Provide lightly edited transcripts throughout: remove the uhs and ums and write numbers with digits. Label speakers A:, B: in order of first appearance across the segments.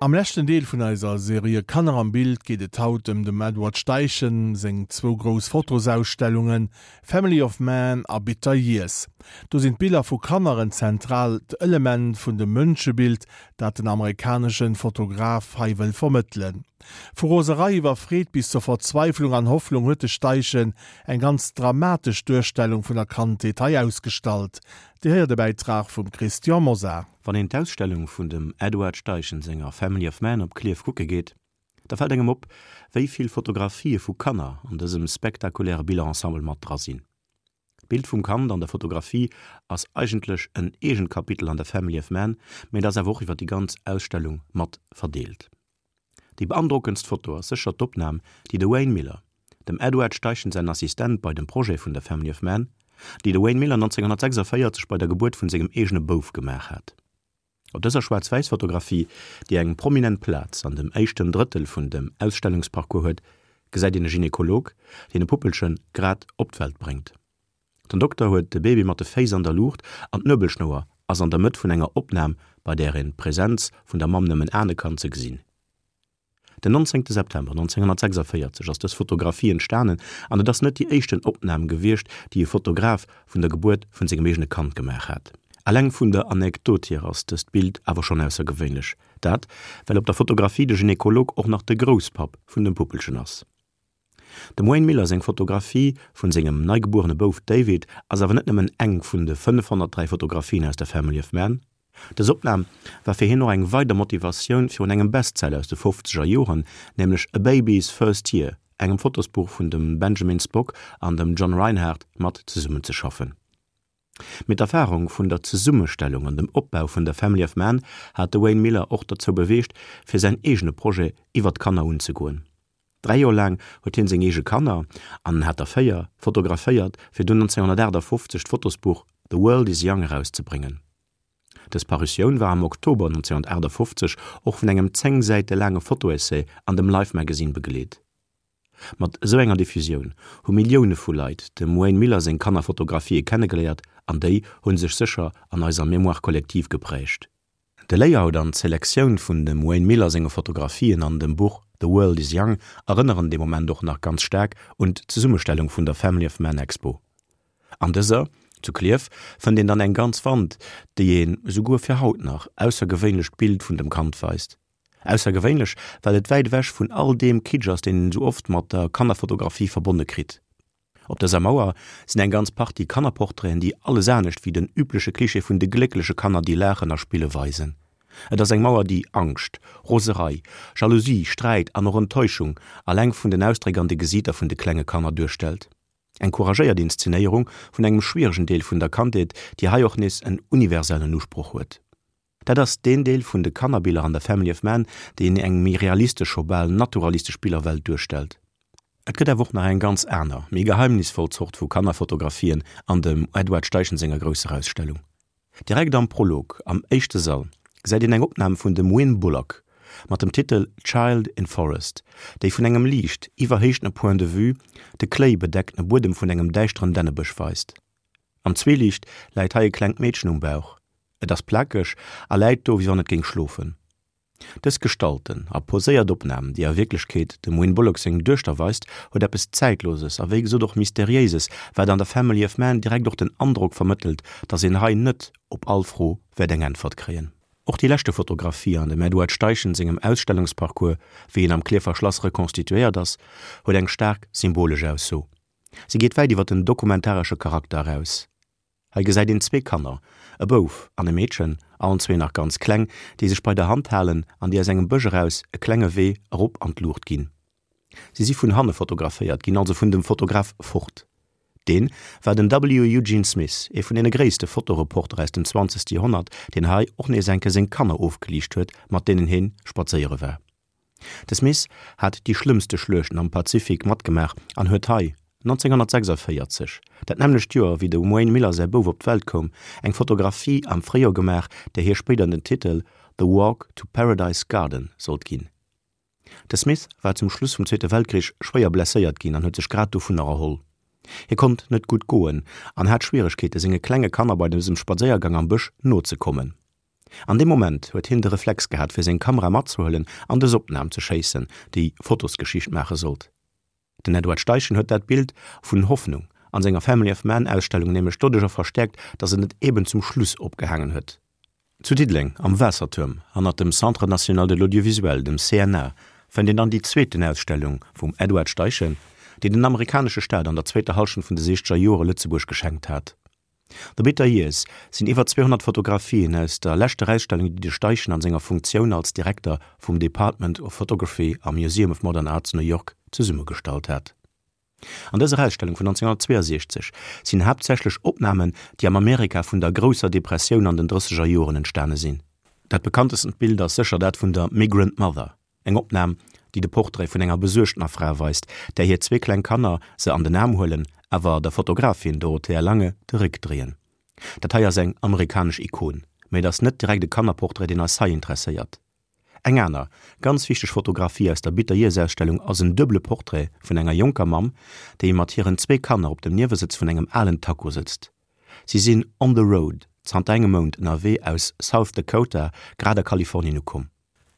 A: Am leschten Deel vun eiser Serie Kanner am Bild geet et haut ëm dem Edward Steichen seng zwou grouss Fotosausstellungen Family of Man a Bitter Years. Do sinn d'Biller vu Kanner en zentraalt Element vun dem Mënschebild, dat den amerikaneschen Fotograf hei wëll vermëttelen. Vu Roserei iwwer Freed bis zur Verzweiflung an Hoffnung huet de Steichen eng ganz dramatesch Duerstellung vun der Kandheet hei ausgestallt. Dir héiert e Bäitrag vum Christian Mosar.
B: Wann een d'Ausstellung vun dem Edward Steichen senger Family of Man op Klierf kucke geet, da fält engem op, wéi vill Fotografië vu Kanner an dësem spektakuläre Billerensemble mat dra sinn. D'Bild vum Kand an der Fotografie ass eigentlech en eegent Kapitel an der Family of Man, mee et ass awer och iwwer déi ganz Ausstellung mat verdeelt. Déi beandrockendst Foto ass sécher d'Opnam, déi de Wayne Miller, dem Edward Steichen säin Assistent bei dem Projet vun der Family of Man, déi de Wayne Miller 1946 bei der Gebuert vun sengem eegene Bouf gemaach hat. Op dëser Schwaarz-Wäiss-Fotografie, déi eng prominent Plaz an dem éischten Drëttel vun dem Ausstellungsparcours huet, gesäit een e Gynekolog, deen e Puppelche grad op d'Welt bréngt. Den Dokter huet de Baby mat de Féiss an der Luucht an d'Nuebelschnouer ass an der Mëtt vun enger Opnam, bei där een d'Presenz vun der Mamm nëmmen ahne kann, ze gesinn. Den 19 September 1946 ass dës Fotografie entstanen an et ass net déi éischten Opnam gewiescht, déi e Fotograf vun der Gebuert vun sengem eegene Kand gemaach hat. Eleng vun der Anekdot hier ass dëst Bild awer schonn aussergewéinlech, dat well op der Fotografie de Gynekolog och nach de Grousspapp vun dem Puppelchen ass. Dem Wayne Miller seng Fotografie vun sengem neigebuerene Bouf David ass awer net nëmmen eng vun de 503 Fotografien aus der Family of Man. Dës Opnam war fir hien och eng weider Motivatioun fir un engem Bestseller aus de fofzeger Joren, nämlech A Baby's First Year, engem Fotosbuch vun dem Benjamin Spock an dem John Reinhard, mat zesummenzeschaffen. Mee d'Erfarung vun der Zesummestellung an dem Opbau vun der Family of Man hat de Wayne Miller och derzou beweegt, fir säin eegene Projet iwwer d'Kanner unzegoen. Dräi Joer laang huet hien seng eege Kanner, an en hat der 4, fotograféiert, fir dunn 1958 d'Fotosbuch The World is Young erauszebréngen. Dës Parutioun war am Oktober 1958 och vun engem 10 Säite laange Fotoessay an dem Life Magazine begleet. Mat esou enger Diffusioun hu Millioune vu Leit dem Wayne Miller seng Kannerfotografië kennegeléiert an déi hu sech sécher an eiser Mémoire collective geprägt. De Layout an d'Selektioun vun dem Wayne Miller senge Fotografien an dem Buch The World is Young erënneren dee Moment och nach ganz staark un d'Zesummestellung vun der Family of Man Expo. An dëser, zu Klierf, fënnt een dann eng ganz Wand, déi een, esouguer fir haut nach, aussergewéinlecht Bild vun dem Kand weist. Aussergewéinlech, well et wäit ewech vun all deem Kitsch ass, deen een esou oft mat der Kannerfotografie verbonne kritt. Op dëser Mauer sinn eng ganz Partie Kannerportraiten, déi alles anescht wéi den übleche Klischee vun de gléckleche Kanner, déi laachen a spille weisen. Et ass eng Mauer, déi Angscht, Roserei, Jalousie, Sträit an och Enttäuschung alleng vun den Ausdréck an de Gesiiter vun de klenge Kanner duerstellt. Eng couragéiert Inszenéierung vun engem schwieregen Deel vun der Kandheet, déi hei och nees en universellen Usproch huet. Dat ass deen Deel vun de Kannerbiller an der Family of Man, deen eng méi realistesch, scho bal naturalistesch Billerwelt duerstellt. Et gëtt awer och nach eng ganz aner, méi geheimnisvoll Zort vu Kannerfotografien an dem Edward Steichen senger grousser Ausstellung. Direkt am Prolog, am éischte Sall, gesäit een eng Opnam vun dem Wynn Bullock mat dem Titel Child in Forest, déi vun engem liicht iwwerhéichtene Point de vue de kléibedeckene Buedem vun engem däischteren Dännebësch weist. Am Zwieliicht läit hei e klengt Meedchen um Bauch. Et ass plakeg a läit do, wéi wann et géing schlofen. Dës gestalten a poséiert Opnam, déi a Wierklechkeet dem Wynne Bullock seng Duechter weist, huet eppes Zäitloses a wéi gesot och Mysteriéises, wat an der Family of Man direkt och den Androck vermëttelt, dass een hei net op all Fro wäert eng Äntwert kréien. Och déi leschte Fotografie an dem Edward Steichen sengem Ausstellungsparcours, wéi en am Klierfer Schlass rekonstituéiert ass, huet eng staark symbolesch Ausso. Si geet wäit iwwer den dokumentaresche Charakter eraus. Hei gesäit een zwee Kanner, e Bouf an e Meedchen, allen zwee nach ganz kleng, déi sech bei der Hand halen an déi aus engem Bësch eraus e klenge Wee erop an d'Luucht ginn. Si si vun hanne fotograféiert ginn, also vun dem Fotograf fort. Deen war den W. Eugene Smith, ee vun deene gréisste Fotoreporter aus dem zwanzegste Joerhonnert, deen hei och nees enke seng Kanner ofgeliicht huet, mat deenen heen spadséiere war. De Smith hat déi schlëmmste Schluechten am Pazifik matgemaach an huet hei, 1946, dat nämmlecht Joer wéi dem Wayne Miller säi Bouf op d'Welt koum, eng Fotografie am Fréijoer gemaach, där hie spéider den Titel The Walk to Paradise Garden sollt ginn. De Smith war zum Schluss vum Zweete Weltkrich schwéier blesséiert ginn an huet sech grad dovunner erholl. Hie konnt net gutt goen an hat Schwieregkeete senge klenge Kanner bei dësem Spadséiergang am Bësch nozekommen. An deem Moment huet hien de Reflex gehat fir seng Kamera matzehuelen an dës Opnam ze schéissen, déi Fotosgeschicht maache sollt. Den Edward Steichen huet dat Bild vun Hoffnung an senger Family of Man Ausstellung nämlech doduercher verstäerkt, datt en et eben zum Schluss opgehaangen huet. Zu Diddeleng am Waassertuerm, hannert dem Centre National de l'Audiovisuel, dem CNA, fënnt een dann déi zweeten Ausstellung vum Edward Steichen, déi den amerikanesche Staat an der zweeter Hallschent vun de siechzeger Joere Lëtzebuerg geschenkt hat. The Bitter Years sinn iwwer 200 Fotografien aus der leschter Ausstellung, déi de Steichen an senger Funktioun als Direkter vum Department of Photography am Museum of Modern Art zu New York zesummegestallt hat. An dëser Ausstellung vun 1962 sinn haaptsächlech Opnamen, déi am Amerika vun der grousser Depressioun an den drësseger Joren entstane sinn. Dat bekanntestent Bild ass sécher dat vun der Migrant Mother, Eng Opnam, déi de Portrait vun enger besuergtener Fra weist, där hir zwee kleng Kanner se an den Aarm huelen, awer der Fotografin Dorothea Lange de Réck dréien. Dat hei ass eng amerikanesch Ikon, mä et ass net direkt e Kannerportrait, deen eis hei interesséiert. Eng aner, ganz wichteg Fotografie aus der Bitter Years Ausstellung ass en duebele Portrait vun enger jonker Mamm, déi mat hiren zwee Kanner op dem Niewesëtz vun engem alen Taco sëtzt. Si sinn on the road, zanter engem Mount ënnerwee aus South Dakota grad a Kalifornien ukomm.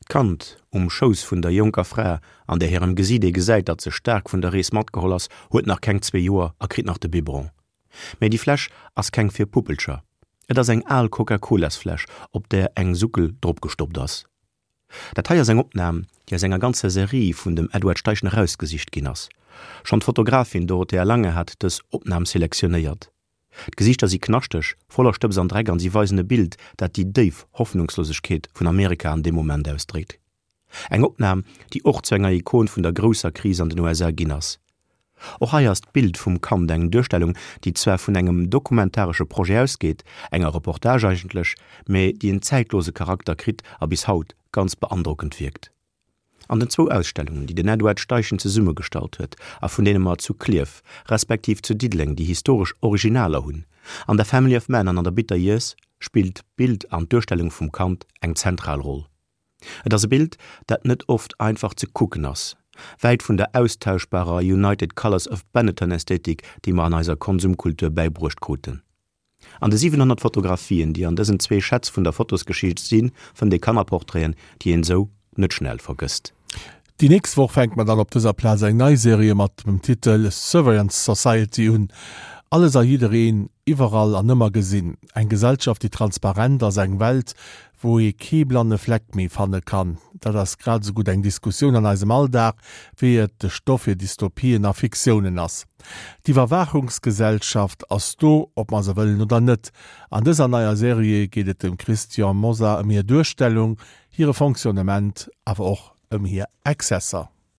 B: D'Kand um Schouss vun der jonker Fra, an där hirem Gesiit ee gesäit, datt se staark vun der Rees matgeholl ass, huet nach keng zwee Joer a kritt nach de Biberon. Mä déi Fläsch ass keng fir Puppelcher. Et ass eng al Coca-Colas-Fläsch, op där eng Suckel dropgestoppt ass. Dat hei ass eng Opnam, déi aus enger ganzer Serie vun dem Edward Steichen erausgesicht ginn ass. Schonn d'Fotografin Dorothea Lange hat dës Opnam selektionéiert. D'Gesiichter si knaschteg, voller Stëbs an Dreck an si weisen e Bild, dat déi déif Hoffnungslosegkeet vun Amerika an deem Moment ausdréckt. Eng Opnam, déi och zu enger Ikon vun der grousser Kris an den USA ginn ass. Och hei ass d'Bild vum Kand eng Duerstellung, déi zwar vun engem dokumentaresche Projet ausgeet, enger Reportage eigentlech, mä déi en zäitlose Charakter kritt a bis haut ganz beandrockend wierkt. An den zwou Ausstellungen, déi den Edward Steichen zesummegestallt huet a vun deene mer zu Klierf, respektiv zu Diddeleng déi historesch Originaler hunn, an der Family of Man an an der Bitter Years, spillt d'Bild an d'Duerstellung vum Kand eng zentral Roll. Et ass e Bild, dat net oft einfach ze kucken ass, wäit vun der austauschbarer United Colors of Benetton-Ästhetik, déi mer an eiser Konsumkultur bäibruecht kruten. An de 700 Fotografien, déi an dësen zwee Schätz vun der Fotosgeschicht sinn, fënnt ee Kannerportraiten, déi een esou net schnell vergësst.
A: Déi nächst Woch fänke mer dann op dëser Plaz eng nei Serie mat dem Titel Surveillance Society un. Alles a jiddereen, iwwerall an ëmmer gesinn. Eng Gesellschaft, déi transparent ass, eng Welt, wou ee kee blanne Fleck méi fanne kann. Dat ass grad esou gutt eng Diskussioun an eisem Alldag, wéi et de Stoff fir Dystopien a Fiktiounen ass. D'Iwwerwaachungsgesellschaft ass do, ob mer se wëllen oder net. An dëser neier Serie geet et dem Christian Mosar ëm hir Duerstellung, hire Fonctionnement, awer och ëm hir Exzesser.